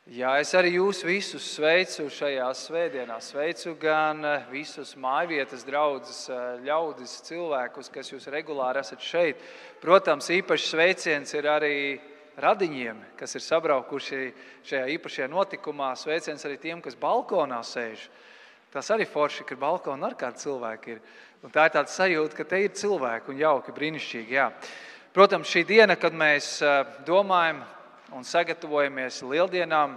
Jā, es arī jūs visus sveicu šajā svētdienā. Sveicu gan visus mājvietas draudzes ļaudis, cilvēkus, kas jūs regulāri esat šeit. Protams, īpašs sveiciens ir arī radiņiem, kas ir sabraukuši šajā īpašajā notikumā. Sveiciens arī tiem, kas balkonā sēž. Tas arī forši, ka balkonā ar kādi cilvēki ir. Un tā ir tāda sajūta, ka te ir cilvēki un jauki, brīnišķīgi. Jā. Protams, šī diena, kad mēs domājam un sagatavojamies lieldienām,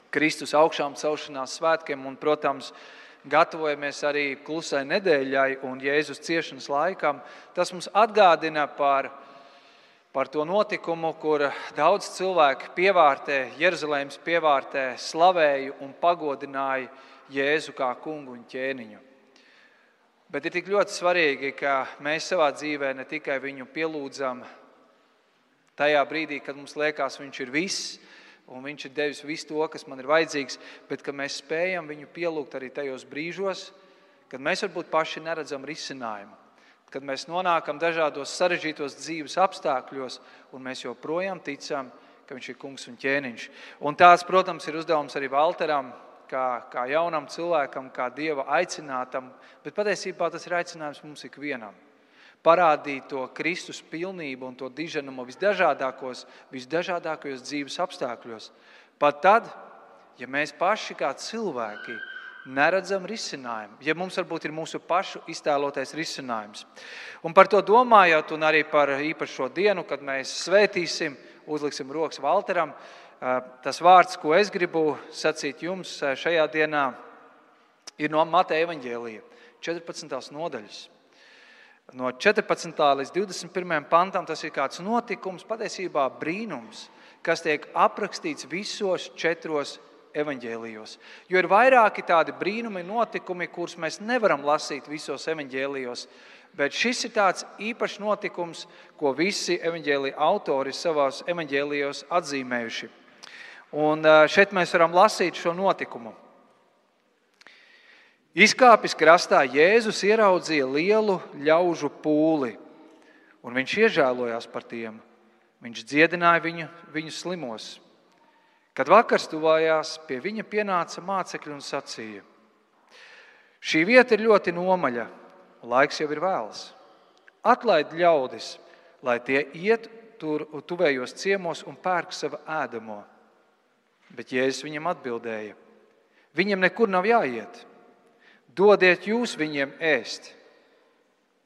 Kristus augšām celšanās svētkiem un, protams, gatavojamies arī klusai nedēļai un Jēzus ciešanas laikam, tas mums atgādina par to notikumu, kur daudz cilvēku pievārtē, Jeruzalemes pievārtē, slavēja un pagodināja Jēzu kā kungu un ķēniņu. Bet ir tik ļoti svarīgi, ka mēs savā dzīvē ne tikai viņu pielūdzam tajā brīdī, kad mums liekas, viņš ir viss, un viņš ir devis visu to, kas man ir vajadzīgs, bet ka mēs spējam viņu pielūgt arī tajos brīžos, kad mēs varbūt paši neredzam risinājumu, kad mēs nonākam dažādos sarežģītos dzīves apstākļos, un mēs joprojām ticam, ka viņš ir kungs un ķēniņš. Un tāds, protams, ir uzdevums arī Valteram, kā jaunam cilvēkam, kā Dieva aicinātam, bet patiesībā tas ir aicinājums mums ikvienam. Parādīt to Kristus pilnību un to diženumu visdažādākajos dzīves apstākļos. Pat tad, ja mēs paši kā cilvēki neredzam risinājumu, ja mums varbūt ir mūsu pašu iztēlotais risinājums. Un par to domājot un arī par īpašo dienu, kad mēs svētīsim, uzliksim rokas Valteram, tas vārds, ko es gribu sacīt jums šajā dienā, ir no Mateja evaņģēlija, 14. nodaļas. No 14. līdz 21. pantam tas ir kāds notikums, patiesībā brīnums, kas tiek aprakstīts visos 4 evaņģēlijos. Jo ir vairāki tādi brīnumi notikumi, kurus mēs nevaram lasīt visos evaņģēlijos, bet šis ir tāds īpašs notikums, ko visi evaņģēlija autori savās evaņģēlijos atzīmējuši. Un šeit mēs varam lasīt šo notikumu. Izkāpis krastā, Jēzus ieraudzīja lielu ļaužu pūli, un viņš iežēlojās par tiem. Viņš dziedināja viņu slimos. Kad vakars tuvājās, pie viņa pienāca mācekļi un sacīja: šī vieta ir ļoti nomaļa, laiks jau ir vēls. Atlaid ļaudis, lai tie iet tur tuvējos ciemos un pērk savu ēdamo. Bet Jēzus viņam atbildēja: viņam nekur nav jāiet. Dodiet jūs viņiem ēst.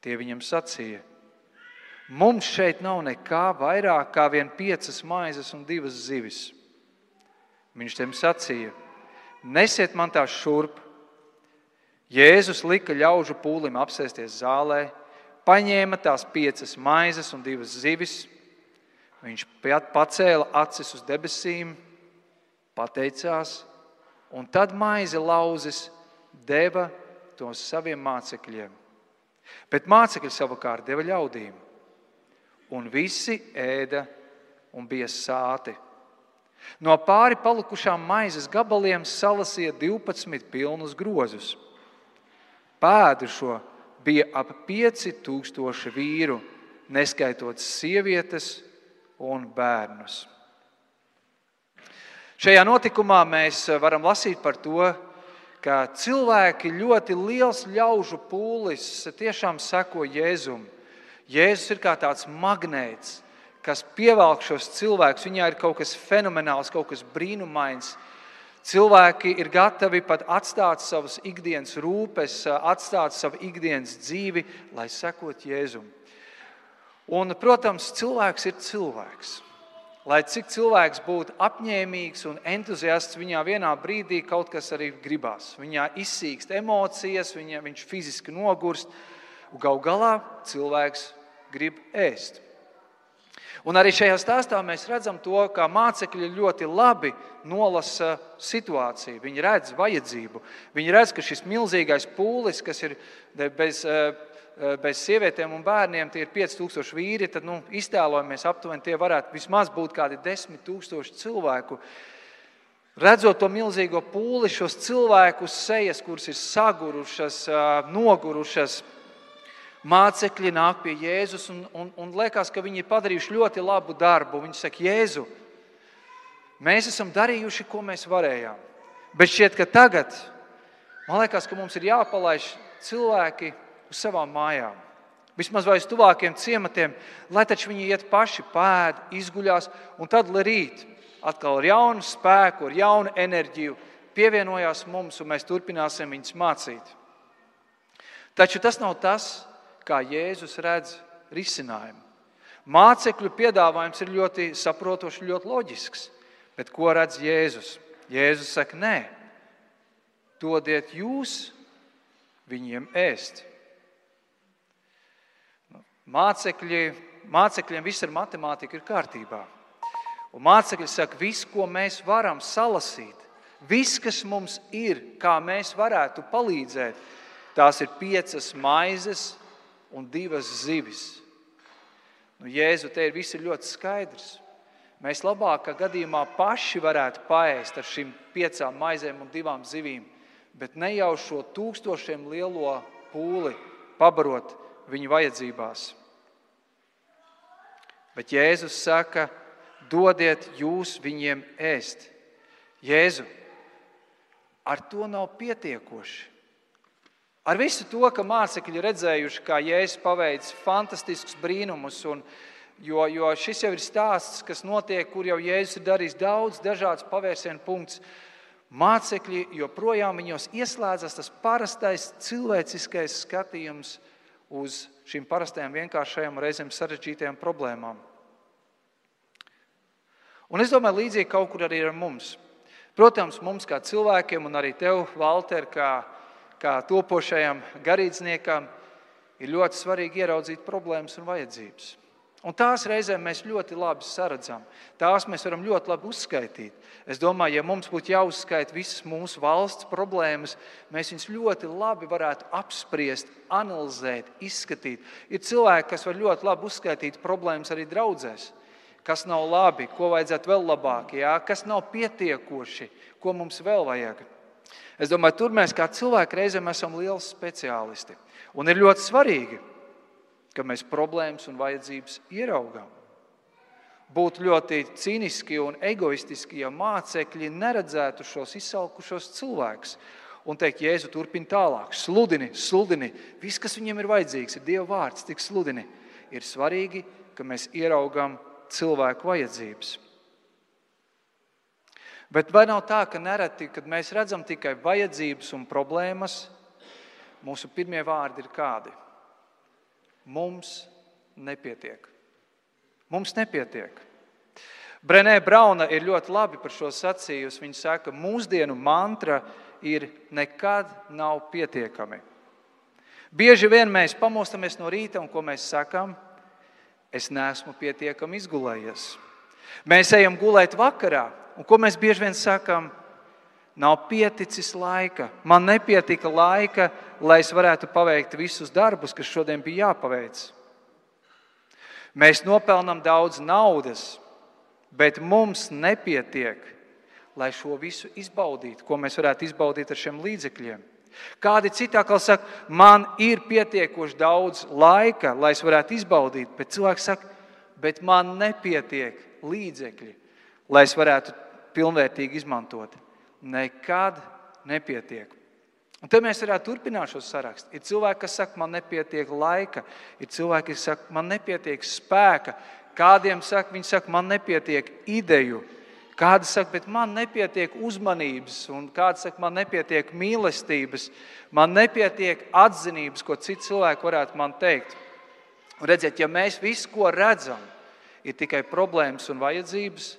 Tie viņam sacīja: mums šeit nav nekā vairāk kā vien 5 maizes un 2 zivis. Viņš tiem sacīja: nesiet man tās šurp. Jēzus lika ļaužu pūlim apsēsties zālē, paņēma tās 5 maizes un 2 zivis. Viņš pacēla acis uz debesīm, pateicās, un tad maizi lauzis deva tos saviem mācekļiem. Bet mācekļi savukārt deva ļaudīm. Un visi ēda un bija sāti. No pāri palikušām maizes gabaliem salasīja 12 pilnus grozus. Pēdušo bija ap 5000 vīru, neskaitot sievietes un bērnus. Šajā notikumā mēs varam lasīt par to, ka cilvēki ļoti liels ļaužu pūlis tiešām seko Jēzum. Jēzus ir kā tāds magnēts, kas pievelk šos cilvēkus. Viņā ir kaut kas fenomenāls, kaut kas brīnumains. Cilvēki ir gatavi pat atstāt savas ikdienas rūpes, atstāt savu ikdienas dzīvi, lai sekot Jēzum. Un, protams, cilvēks ir cilvēks. Lai cik cilvēks būtu apņēmīgs un entuziasts, viņā vienā brīdī kaut kas arī gribās. Viņā izsīkst emocijas, viņš fiziski nogurst, un gal galā cilvēks grib ēst. Un arī šajā stāstā mēs redzam to, kā mācekļi ļoti labi nolasa situāciju. Viņi redz vajadzību. Viņi redz, ka šis milzīgais pūlis, kas ir bez sievietēm un bērniem, tie ir 5000 vīri, tad iztēlojamies aptuveni, tie varētu vismaz būt kādi 10 000 cilvēku. Redzot to milzīgo pūli, šos cilvēkus sejas, kuras ir sagurušas, nogurušas, mācekļi nāk pie Jēzus un liekas, ka viņi ir padarījuši ļoti labu darbu. Viņi saka: Jēzu, Mēs esam darījuši, ko mēs varējām. Bet šķiet, ka tagad, man liekas, ka mums ir jāpalaiž cilvēki uz savām mājām. Vismaz vai uz tuvākiem ciematiem, lai taču viņi iet paši, pēd, izguļās, un tad, lai rīt atkal ar jaunu spēku, ar jaunu enerģiju pievienojās mums, un mēs turpināsim viņus mācīt. Taču tas nav tas, kā Jēzus redz risinājumu. Mācekļu piedāvājums ir ļoti saprotošs, ļoti loģisks. Bet ko redz Jēzus? Jēzus saka, nē, dodiet jūs viņiem ēst. Mācekļiem viss ar matemātiku ir kārtībā. Un mācekļi saka, viss, ko mēs varam salasīt, viss, kas mums ir, kā mēs varētu palīdzēt, tās ir 5 maizes un 2 zivis. Jēzu, te viss ir ļoti skaidrs. Mēs labākā gadījumā paši varētu paēst ar šīm 5 maizēm un 2 zivīm, bet ne jau šo 1000 lielo pūli pabarot viņu vajadzībās. Bet Jēzus saka, dodiet jūs viņiem ēst. Jēzu, ar to nav pietiekoši. Ar visu to, ka mācekļi redzējuši, kā Jēzus paveic fantastiskus brīnumus, jo šis jau ir stāsts, kas notiek, kur jau Jēzus ir darījis daudz dažādas pavērsienu punktus. Mācekļi joprojām viņos ieslēdzas tas parastais cilvēciskais skatījums uz šīm parastajām vienkāršajām reizēm sarežģītajām problēmām. Un es domāju, līdzīgi kaut kur arī ar mums. Protams, mums kā cilvēkiem un arī tev, Valter, kā topošajam garīdzniekam, ir ļoti svarīgi ieraudzīt problēmas un vajadzības. Un tās reizēm mēs ļoti labi saredzam. Tās mēs varam ļoti labi uzskaitīt. Es domāju, ja mums būtu jāuzskaita visas mūsu valsts problēmas, mēs viņus ļoti labi varētu apspriest, analizēt, izskatīt. Ir cilvēki, kas var ļoti labi uzskaitīt problēmas arī draudzēs. Kas nav labi, ko vajadzētu vēl labāk, kas nav pietiekoši, ko mums vēl vajag. Es domāju, tur mēs kā cilvēki reizēm esam lieli speciālisti. Un ir ļoti svarīgi, ka mēs problēmas un vajadzības ieraugām. Būtu ļoti cīniski un egoistiski, ja mācekļi neredzētu šos izsalkušos cilvēkus un teikt, Jēzu turpina tālāk, sludini, viss, kas viņiem ir vajadzīgs, ir Dieva vārds, tik sludini. Ir svarīgi, ka mēs ieraugām cilvēku vajadzības. Bet vai nav tā, ka nereti, kad mēs redzam tikai vajadzības un problēmas, mūsu pirmie vārdi ir kādi? Mums nepietiek. Mums nepietiek. Brené Brauna ir ļoti labi par šo sacījusi. Viņa saka, mūsdienu mantra ir nekad nav pietiekami. Bieži vien mēs pamostamies no rīta un ko mēs sakam? Es neesmu pietiekami izgulējies. Mēs ejam gulēt vakarā un ko mēs bieži vien sakam? Nav pieticis laika. Man nepietika laika, lai es varētu paveikt visus darbus, kas šodien bija jāpaveic. Mēs nopelnam daudz naudas, bet mums nepietiek, lai šo visu izbaudītu, ko mēs varētu izbaudīt ar šiem līdzekļiem. Kādi citi atkal saka, man ir pietiekoši daudz laika, lai es varētu izbaudīt, bet cilvēks saka, bet man nepietiek līdzekļi, lai es varētu pilnvērtīgi izmantot. Nekad nepietiek. Un te mēs varētu turpināt šo sarakstu. Ir cilvēki, kas saka, man nepietiek laika. Ir cilvēki, kas saka, man nepietiek spēka. Kādiem saka, viņi saka, man nepietiek ideju. Kādi saka, bet man nepietiek uzmanības. Un kādi saka, man nepietiek mīlestības. Man nepietiek atzinības, ko citi cilvēki varētu man teikt. Un redziet, ja mēs visu, ko redzam, ir tikai problēmas un vajadzības,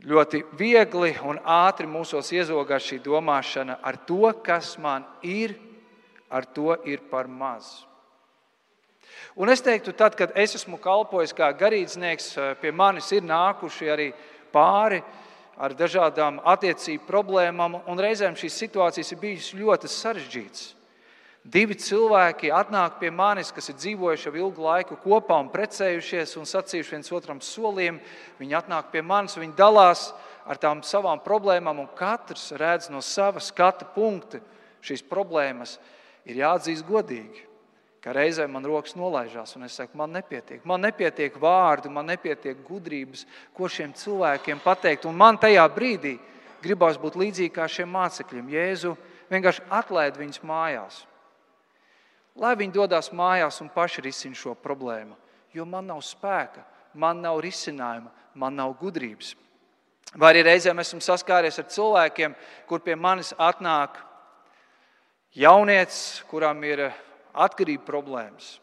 ļoti viegli un ātri mūsos iezogās šī domāšana ar to, kas man ir, ar to ir par maz. Un es teiktu, tad, kad es esmu kalpojis kā garīdznieks, pie manis ir nākuši arī pāri ar dažādām attiecību problēmām, un reizēm šīs situācijas ir bijušas ļoti sarežģītas. 2 cilvēki atnāk pie manis, kas ir dzīvojuši jau ilgu laiku kopā un precējušies un sacījuši viens otram solījumu. Viņi atnāk pie manis, viņi dalās ar tām savām problēmām, un katrs redz no sava skata punkta šīs problēmas. Ir jāatzīst godīgi. ka reizē man rokas nolaižās, un es saku, man nepietiek vārdu, man nepietiek gudrības, ko šiem cilvēkiem pateikt, un man tajā brīdī gribās būt līdzīgi kā šiem mācekļiem. Jēzu, vienkārši atlaid viņus mājās. Lai viņi dodās mājās un paši risina šo problēmu, jo man nav spēka, man nav risinājuma, man nav gudrības. Vai arī reizēm esmu saskāries ar cilvēkiem, kur pie manis atnāk jaunietis, kuram ir atkarība problēmas.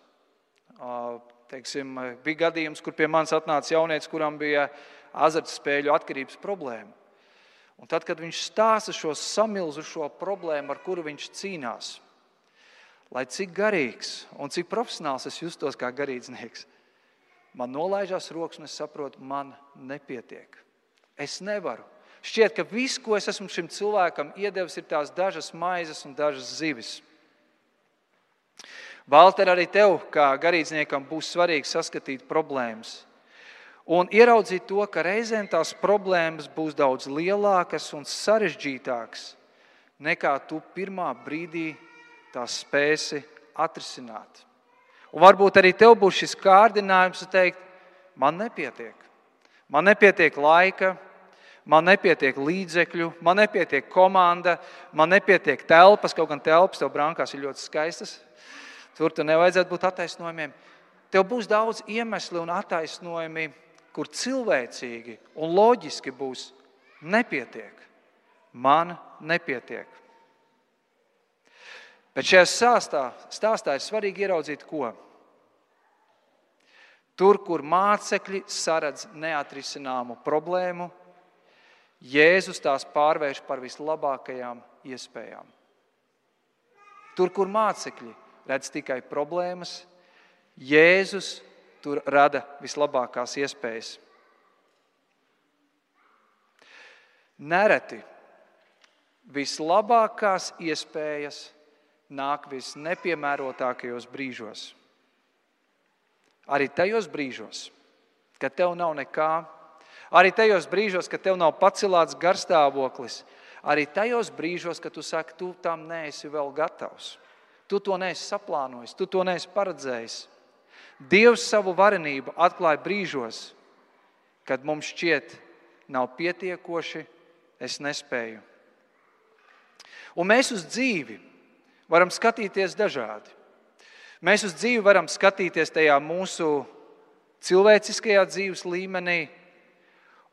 Teiksim, bija gadījums, kur pie manis atnāca jaunietis, kuram bija azartspēļu atkarības problēma. Un tad, kad viņš stāsta šo samilzušo problēmu, ar kuru viņš cīnās, lai cik garīgs un cik profesionāls es justos kā garīdznieks, man nolaižās rokas un es saprotu, man nepietiek. Es nevaru. Šķiet, ka viss, ko es esmu šim cilvēkam iedevis, ir tās dažas maizes un dažas zivis. Valter, arī tev, kā garīdzniekam, būs svarīgi saskatīt problēmas un ieraudzīt to, ka reizēm tās problēmas būs daudz lielākas un sarežģītākas, nekā tu pirmā brīdī tās spēsi atrisināt. Un varbūt arī tev būs šis kārdinājums teikt, man nepietiek. Man nepietiek laika, man nepietiek līdzekļu, man nepietiek komanda, man nepietiek telpas, kaut gan telpas tev brankās ir ļoti skaistas. Tur tu nevajadzētu būt attaisnojumiem. Tev būs daudz iemesli un attaisnojumi, kur cilvēcīgi un loģiski būs nepietiek. Man nepietiek. Bet šajā stāstā ir svarīgi ieraudzīt, ko? Tur, kur mācekļi saredz neatrisināmu problēmu, Jēzus tās pārvērš par vislabākajām iespējām. Tur, kur mācekļi redz tikai problēmas, Jēzus tur rada vislabākās iespējas. Nereti vislabākās iespējas nāk visnepiemērotākajos brīžos. Arī tajos brīžos, kad tev nav nekā, arī tajos brīžos, kad tev nav pacelāts garstāvoklis, arī tajos brīžos, kad tu saki, tu tam neesi vēl gatavs. Tu to neesi saplānojis, tu to neesi paredzējis. Dievs savu varenību atklāja brīžos, kad mums šķiet nav pietiekoši, es nespēju. Un mēs uz dzīvi varam skatīties dažādi. Mēs uz dzīvi varam skatīties tajā mūsu cilvēciskajā dzīves līmenī,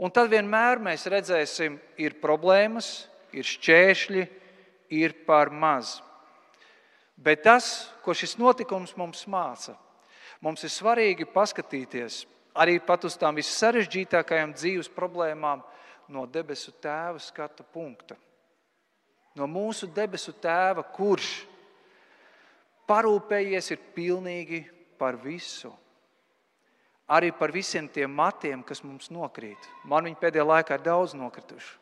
un tad vienmēr mēs redzēsim, ir problēmas, ir šķēršļi, ir par maz. Bet tas, ko šis notikums mums māca, mums ir svarīgi paskatīties arī pat uz tām vissarežģītākajām dzīves problēmām no debesu Tēva skatu punkta. No mūsu debesu Tēva, kurš parūpējies ir pilnīgi par visu. Arī par visiem tiem matiem, kas mums nokrīt. Man viņi pēdējā laikā ir daudz nokrituši.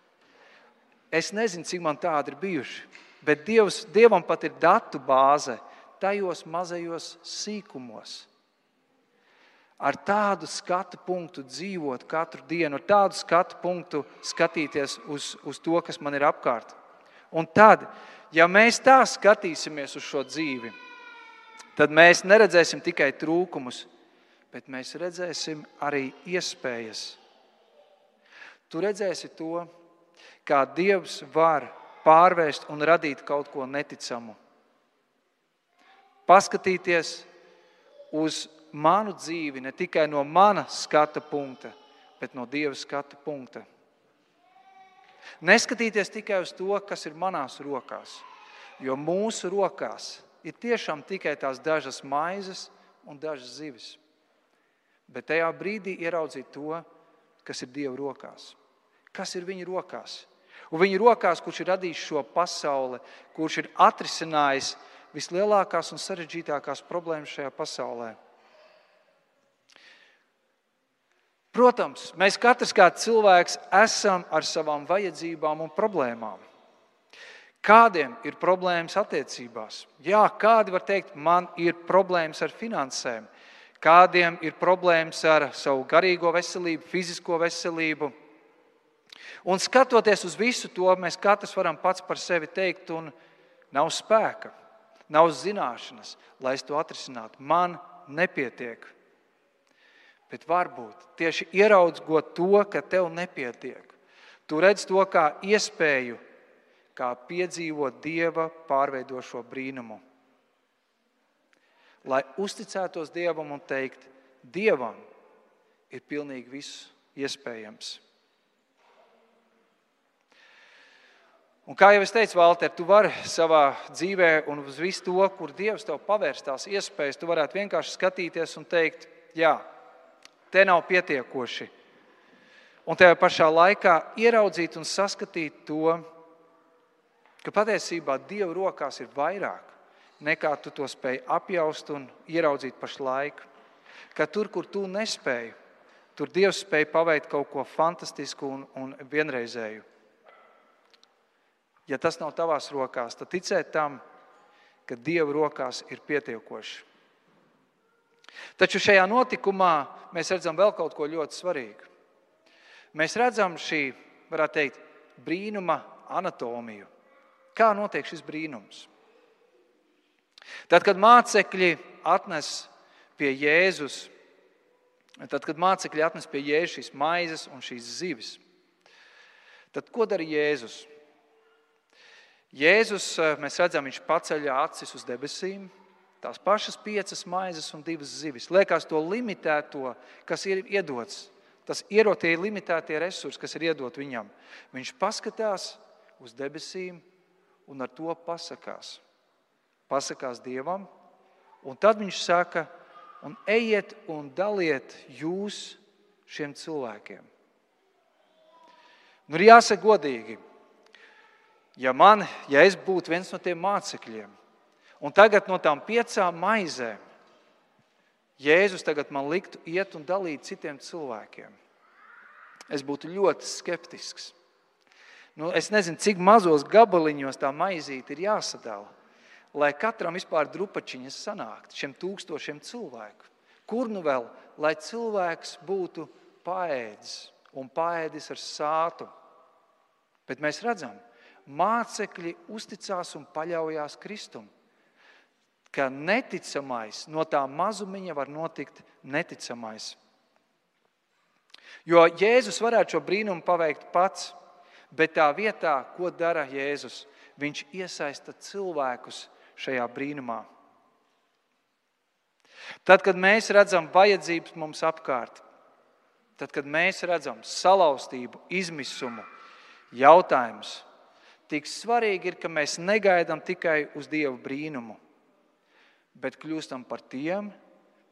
Es nezinu, cik man tādi ir bijuši, bet Dievam pat ir datu bāze tajos mazajos sīkumos. Ar tādu skatu punktu dzīvot katru dienu, ar tādu skatu punktu skatīties uz to, kas man ir apkārt. Un tad, ja mēs tā skatīsimies uz šo dzīvi, tad mēs neredzēsim tikai trūkumus, bet mēs redzēsim arī iespējas. Tu redzēsi to, kā Dievs var pārvērst un radīt kaut ko neticamu. Paskatīties uz manu dzīvi ne tikai no mana skata punkta, bet no Dieva skata punkta. Neskatīties tikai uz to, kas ir manās rokās, jo mūsu rokās ir tiešām tikai tās dažas maizes un dažas zivis. Bet tajā brīdī ieraudzīt to, kas ir Dieva rokās. Kas ir viņa rokās? Un viņa rokās, kurš ir radījis šo pasauli, kurš ir atrisinājis vislielākās un sarežģītākās problēmas šajā pasaulē. Protams, mēs katrs kā cilvēks esam ar savām vajadzībām un problēmām. Kādiem ir problēmas attiecībās? Jā, kādi var teikt, man ir problēmas ar finansēm. Kādiem ir problēmas ar savu garīgo veselību, fizisko veselību. Un skatoties uz visu to, mēs katrs varam pats par sevi teikt, un nav spēka. nav zināšanas, lai es to atrisinātu. Man nepietiek. Bet varbūt tieši ieraugot to, ka tev nepietiek, tu redz to kā iespēju, kā piedzīvot Dieva pārveidošo brīnumu. Lai uzticētos Dievam un teikt, Dievam ir pilnīgi viss iespējams. Un kā jau es teicu, Valter, tu vari savā dzīvē un uz visu to, kur Dievs tev pavērs tās iespējas, tu varētu vienkārši skatīties un teikt, jā, te nav pietiekoši. Un tajā pašā laikā ieraudzīt un saskatīt to, ka patiesībā Dieva rokās ir vairāk, nekā tu to spēj apjaust un ieraudzīt pašlaik. Ka tur, kur tu nespēji, tur Dievs spēj paveikt kaut ko fantastisku un vienreizēju. Ja tas nav tavās rokās, tad ticēt tam, ka Dieva rokās ir pietiekoši. Taču šajā notikumā mēs redzam vēl kaut ko ļoti svarīgu. Mēs redzam šī, varētu teikt, brīnuma anatomiju. Kā notiek šis brīnums? Tad, kad mācekļi atnes pie Jēzus šīs maizes un šīs zivis, tad ko dara Jēzus? Jēzus, mēs redzam, viņš paceļ acis uz debesīm, tās pašas 5 maizes un 2 zivis. Liekas to limitēto, kas ir iedots, tas ierotie limitētie resursi, kas ir iedot viņam. Viņš paskatās uz debesīm un ar to pasakās. Pasakās Dievam, un tad viņš saka, un ejiet un daliet jūs šiem cilvēkiem. Nu, ir jāsaka godīgi, ja es būtu viens no tiem mācekļiem, un tagad no tām 5 maizēm Jēzus tagad man liktu iet un dalīt citiem cilvēkiem, es būtu ļoti skeptisks. Es nezinu, cik mazos gabaliņos tā maizīte ir jāsadala, lai katram vispār drupačiņas sanākt, šiem 1000 cilvēku. Kur nu vēl, lai cilvēks būtu paēdis un paēdis ar sātu. Bet mēs redzam, mācekļi uzticās un paļaujās Kristum, ka neticamais, no tā mazumiņa var notikt neticamais. Jo Jēzus varētu šo brīnumu paveikt pats, bet tā vietā, ko dara Jēzus, viņš iesaista cilvēkus šajā brīnumā. Tad, kad mēs redzam vajadzības mums apkārt, tad, kad mēs redzam salauztību, izmisumu, jautājumus, tik svarīgi ir, ka mēs negaidām tikai uz Dieva brīnumu, bet kļūstam par tiem,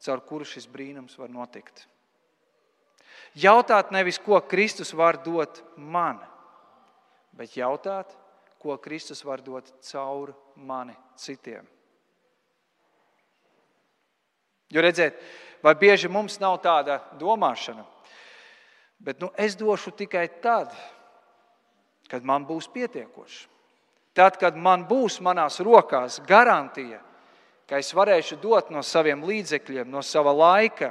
caur kuru šis brīnums var notikt. Jautāt nevis, ko Kristus var dot man, bet jautāt, ko Kristus var dot caur mani citiem. Jo redziet, vai bieži mums nav tāda domāšana, bet es došu tikai tad, kad man būs pietiekoši. Tad, kad man būs manās rokās garantija, ka es varēšu dot no saviem līdzekļiem, no sava laika,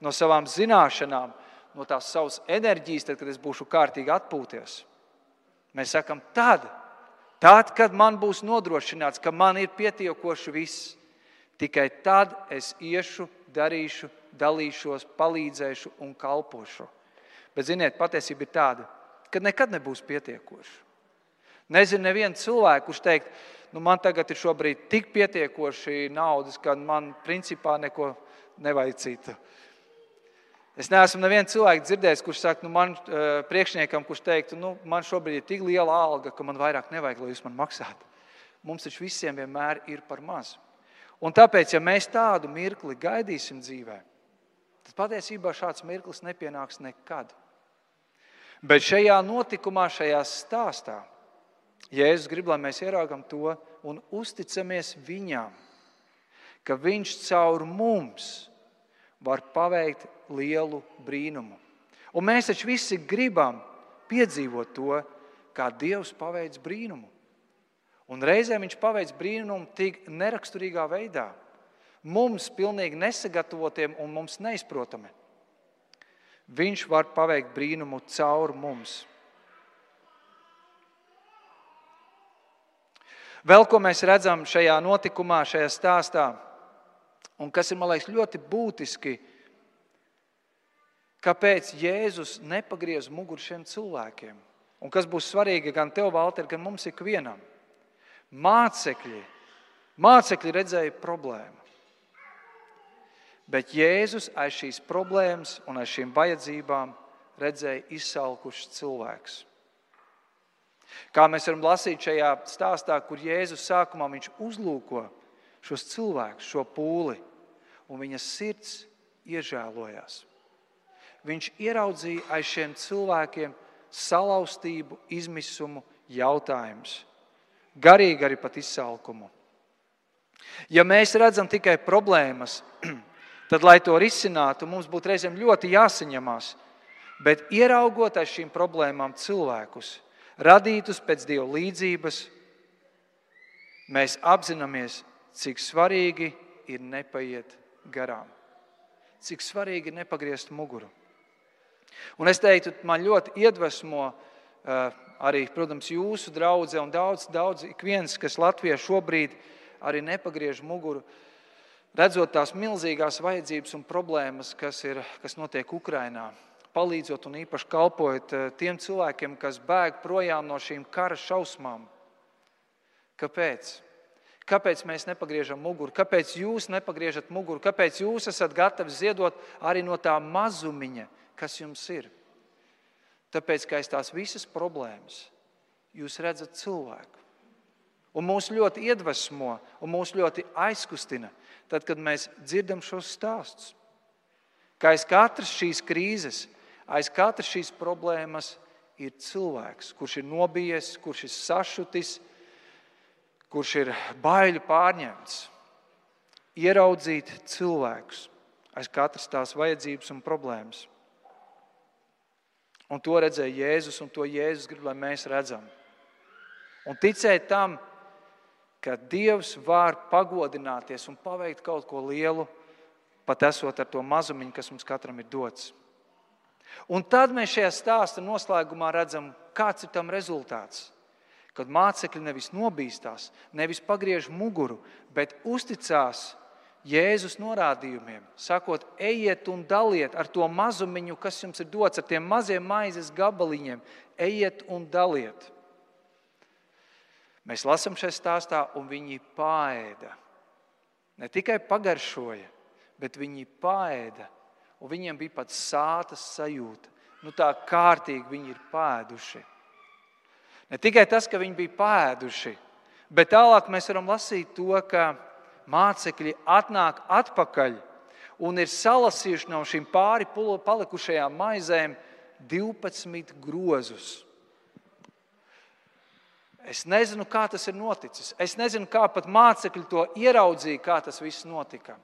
no savām zināšanām, no tās savas enerģijas, tad, kad es būšu kārtīgi atpūties. Mēs sakam, tad, kad man būs nodrošināts, ka man ir pietiekoši viss, tikai tad es iešu, darīšu, dalīšos, palīdzēšu un kalpošu. Bet, ziniet, patiesība ir tāda, ka nekad nebūs pietiekoši. Nezinu nevienu cilvēku, kurš teikt, man tagad ir šobrīd tik pietiekoši naudas, ka man principā neko nevajag citu. Es neesmu nevienu cilvēku dzirdējis, kurš saka, man priekšniekam, kurš teiktu, man šobrīd ir tik liela alga, ka man vairāk nevajag, lai jūs man maksātu. Mums taču visiem vienmēr ir par maz. Un tāpēc, ja mēs tādu mirkli gaidīsim dzīvē, tad patiesībā šāds mirklis nepienāks nekad. Bet šajā notikumā, šajā stāstā, Jēzus grib, lai mēs ieraugam to un uzticamies viņam, ka viņš caur mums var paveikt lielu brīnumu. Un mēs taču visi gribam piedzīvot to, kā Dievs paveic brīnumu. Un reizēm viņš paveic brīnumu tik neraksturīgā veidā, mums pilnīgi nesagatavotiem un mums neizprotami. Viņš var paveikt brīnumu caur mums. Vēl ko mēs redzam šajā notikumā, šajā stāstā, un kas ir, man liekas, ļoti būtiski, kāpēc Jēzus nepagriez muguru šiem cilvēkiem. Un kas būs svarīgi gan tev, Valter, gan mums ikvienam. Mācekļi redzēja problēmu. Bet Jēzus aiz šīs problēmas un aiz šīm vajadzībām redzēja izsalkušs cilvēks. Kā mēs varam lasīt šajā stāstā, kur Jēzus sākumā viņš uzlūko šos cilvēkus, šo pūli, un viņa sirds iežēlojās. Viņš ieraudzīja aiz šiem cilvēkiem salauztību, izmisumu, jautājumus. Garīgi arī pat izsalkumu. Ja mēs redzam tikai problēmas, tad, lai to risinātu, mums būtu reizēm ļoti jāsaņemās. Bet ieraugot aiz šīm problēmām cilvēkus, radītus pēc Dieva līdzības, mēs apzināmies, cik svarīgi ir nepaiet garām. Cik svarīgi ir nepagriezt muguru. Un es teiktu, man ļoti iedvesmo arī, protams, jūsu draudze un daudz ik viens, kas Latvijā šobrīd arī nepagriež muguru, redzot tās milzīgās vajadzības un problēmas, kas notiek Ukrainā, palīdzot un īpaši kalpojot tiem cilvēkiem, kas bēg projām no šīm kara šausmām. Kāpēc? Kāpēc mēs nepagriežam muguru? Kāpēc jūs nepagriežat muguru? Kāpēc jūs esat gatavi ziedot arī no tā mazumiņa, kas jums ir? Tāpēc, ka aiz tās visas problēmas jūs redzat cilvēku. Un mūs ļoti iedvesmo un mūs ļoti aizkustina, tad, kad mēs dzirdam šos stāstus. Ka aiz katras šīs krīzes, aiz katras šīs problēmas ir cilvēks, kurš ir nobijies, kurš ir sašutis, kurš ir baiļu pārņemts. Ieraudzīt cilvēkus aiz katras tās vajadzības un problēmas. Un to redzēja Jēzus, un to Jēzus grib, lai mēs redzam. Un ticēt tam, ka Dievs var pagodināties un paveikt kaut ko lielu, pat esot ar to mazumiņu, kas mums katram ir dots. Un tad mēs šajā stāsta noslēgumā redzam, kāds ir tam rezultāts. Kad mācekļi nevis nobīstās, nevis pagriež muguru, bet uzticās Jēzus norādījumiem, sakot, ejiet un daliet ar to mazumiņu, kas jums ir dots, ar tiem maziem maizes gabaliņiem, ejiet un daliet. Mēs lasām šajā stāstā, un viņi paēda. Ne tikai pagaršoja, bet viņi paēda, un viņiem bija pat sātas sajūta. Tā kārtīgi viņi ir paēduši. Ne tikai tas, ka viņi bija paēduši, bet tālāk mēs varam lasīt to, ka mācekļi atnāk atpakaļ un ir salasījuši no šīm pāri palikušajām maizēm 12 grozus. Es nezinu, kā tas ir noticis. Es nezinu, kā pat mācekļi to ieraudzīja, kā tas viss notika.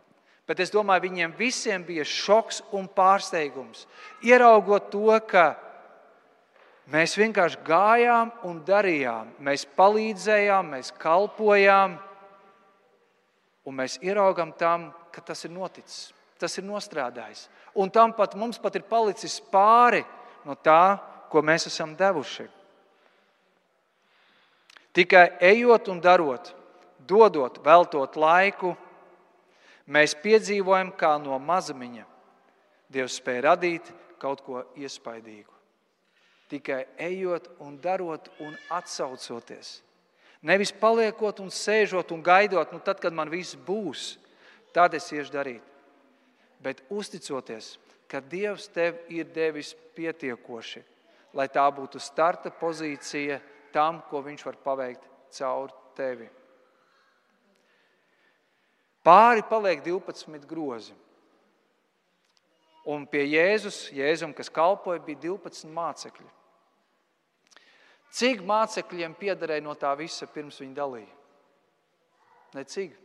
Bet es domāju, viņiem visiem bija šoks un pārsteigums. Ieraugot to, ka mēs vienkārši gājām un darījām. Mēs palīdzējām, mēs kalpojām. Un mēs ieraugam tam, ka tas ir noticis. Tas ir nostrādājis. Un tam pat mums pat ir palicis pāri no tā, ko mēs esam devuši. Tikai ejot un darot, dodot, veltot laiku, mēs piedzīvojam, kā no mazumiņa Dievs spēj radīt kaut ko iespaidīgu. Tikai ejot un darot un atsaucoties. Nevis paliekot un sēžot un gaidot, tad, kad man viss būs, tad es iešu darīt. Bet uzticoties, ka Dievs tev ir devis pietiekoši, lai tā būtu starta pozīcija tam, ko viņš var paveikt caur tevi. Pāri paliek 12 grozi. Un pie Jēzum, kas kalpoja, bija 12 mācekļi. Cik mācekļiem piederēja no tā visa, pirms viņi dalīja? Necik.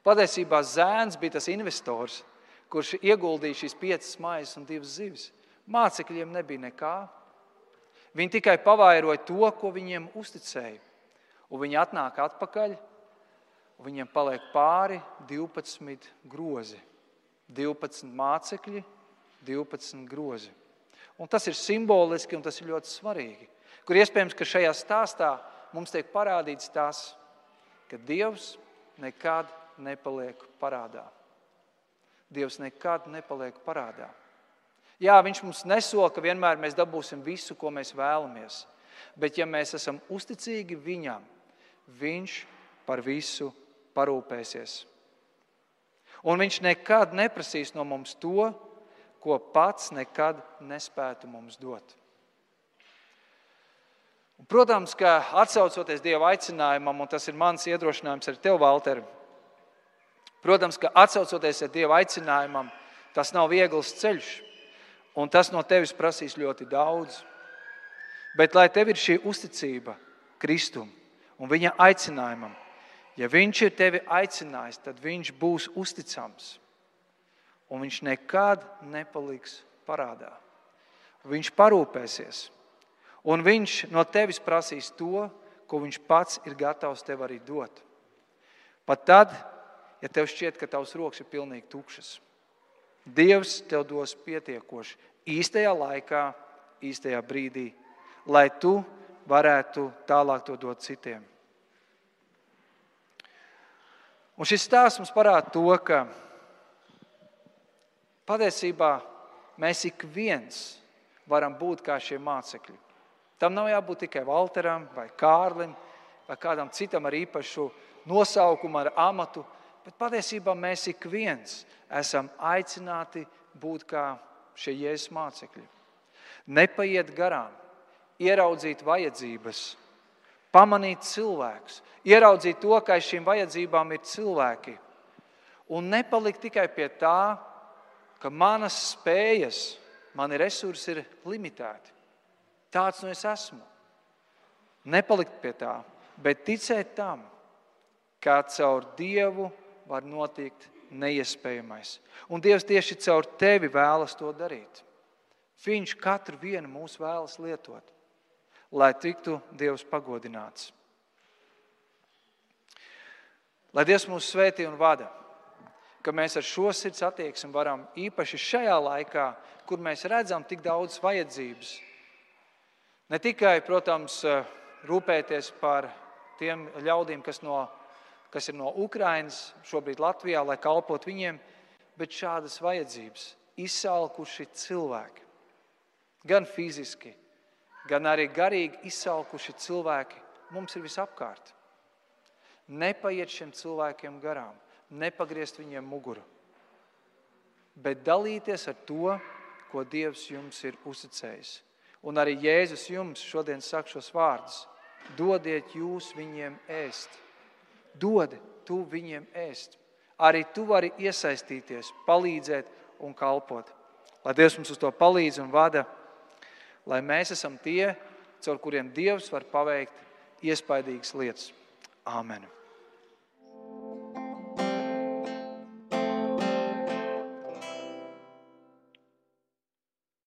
Patiesībā zēns bija tas investors, kurš ieguldīja šīs 5 maizes un 2 zivis. Mācekļiem nebija nekā. Viņi tikai pavairoja to, ko viņiem uzticēja. Un viņi atnāk atpakaļ, un viņiem paliek pāri 12 grozi. 12 mācekļi, 12 grozi. Un tas ir simboliski, un tas ir ļoti svarīgi. Kur iespējams, ka šajā stāstā mums tiek parādīts tas, ka Dievs nekad nepaliek parādā. Dievs nekad nepaliek parādā. Jā, viņš mums nesola, ka vienmēr mēs dabūsim visu, ko mēs vēlamies. Bet ja mēs esam uzticīgi viņam, viņš par visu parūpēsies. Un viņš nekad neprasīs no mums to, ko pats nekad nespētu mums dot. Un, protams, ka atsaucoties Dieva aicinājumam, un tas ir mans iedrošinājums ar tev, Valter, protams, ka atsaucoties ar Dieva aicinājumam, tas nav viegls ceļš, un tas no tevis prasīs ļoti daudz. Bet lai tev ir šī uzticība Kristum un viņa aicinājumam, ja viņš ir tevi aicinājis, tad viņš būs uzticams. Un viņš nekad nepaliks parādā. Viņš parūpēsies. Un viņš no tevis prasīs to, ko viņš pats ir gatavs tev arī dot. Pat tad, ja tev šķiet, ka tavs rokas ir pilnīgi tukšas. Dievs tev dos pietiekoši īstajā laikā, īstajā brīdī, lai tu varētu tālāk to dot citiem. Un šis stāsts mums parāda to, ka patiesībā mēs ik viens varam būt kā šie mācekļi. Tam nav jābūt tikai Valteram vai Kārlim vai kādam citam ar īpašu nosaukumu, ar amatu, bet patiesībā mēs ik viens esam aicināti būt kā šie Jēzus mācekļi. Nepaiet garām, ieraudzīt vajadzības, pamanīt cilvēkus, ieraudzīt to, ka aiz šīm vajadzībām ir cilvēki. Un nepalikt tikai pie tā, ka manas spējas, mani resursi ir limitēti. Tāds nu es esmu. Nepalikt pie tā, bet ticēt tam, kā caur Dievu var notikt neiespējamais. Un Dievs tieši caur tevi vēlas to darīt. Viņš katru vienu mūs vēlas lietot, lai tiktu Dievs pagodināts. Lai Dievs mūs svētī un vada, ka mēs ar šo sirds attieksmi varam īpaši šajā laikā, kur mēs redzam tik daudz vajadzības, ne tikai, protams, rūpēties par tiem ļaudīm, kas ir no Ukrainas, šobrīd Latvijā, lai kalpot viņiem, bet šādas vajadzības, izsalkuši cilvēki, gan fiziski, gan arī garīgi izsalkuši cilvēki mums ir visapkārt. Nepaiet šiem cilvēkiem garām, nepagriezt viņiem muguru, bet dalīties ar to, ko Dievs jums ir uzticējis. Un arī Jēzus jums šodien saka šos vārdus. Dodiet jūs viņiem ēst. Dod tu viņiem ēst. Arī tu vari iesaistīties, palīdzēt un kalpot. Lai Dievs mums uz to palīdz un vada, lai mēs esam tie, caur kuriem Dievs var paveikt iespaidīgas lietas. Āmen.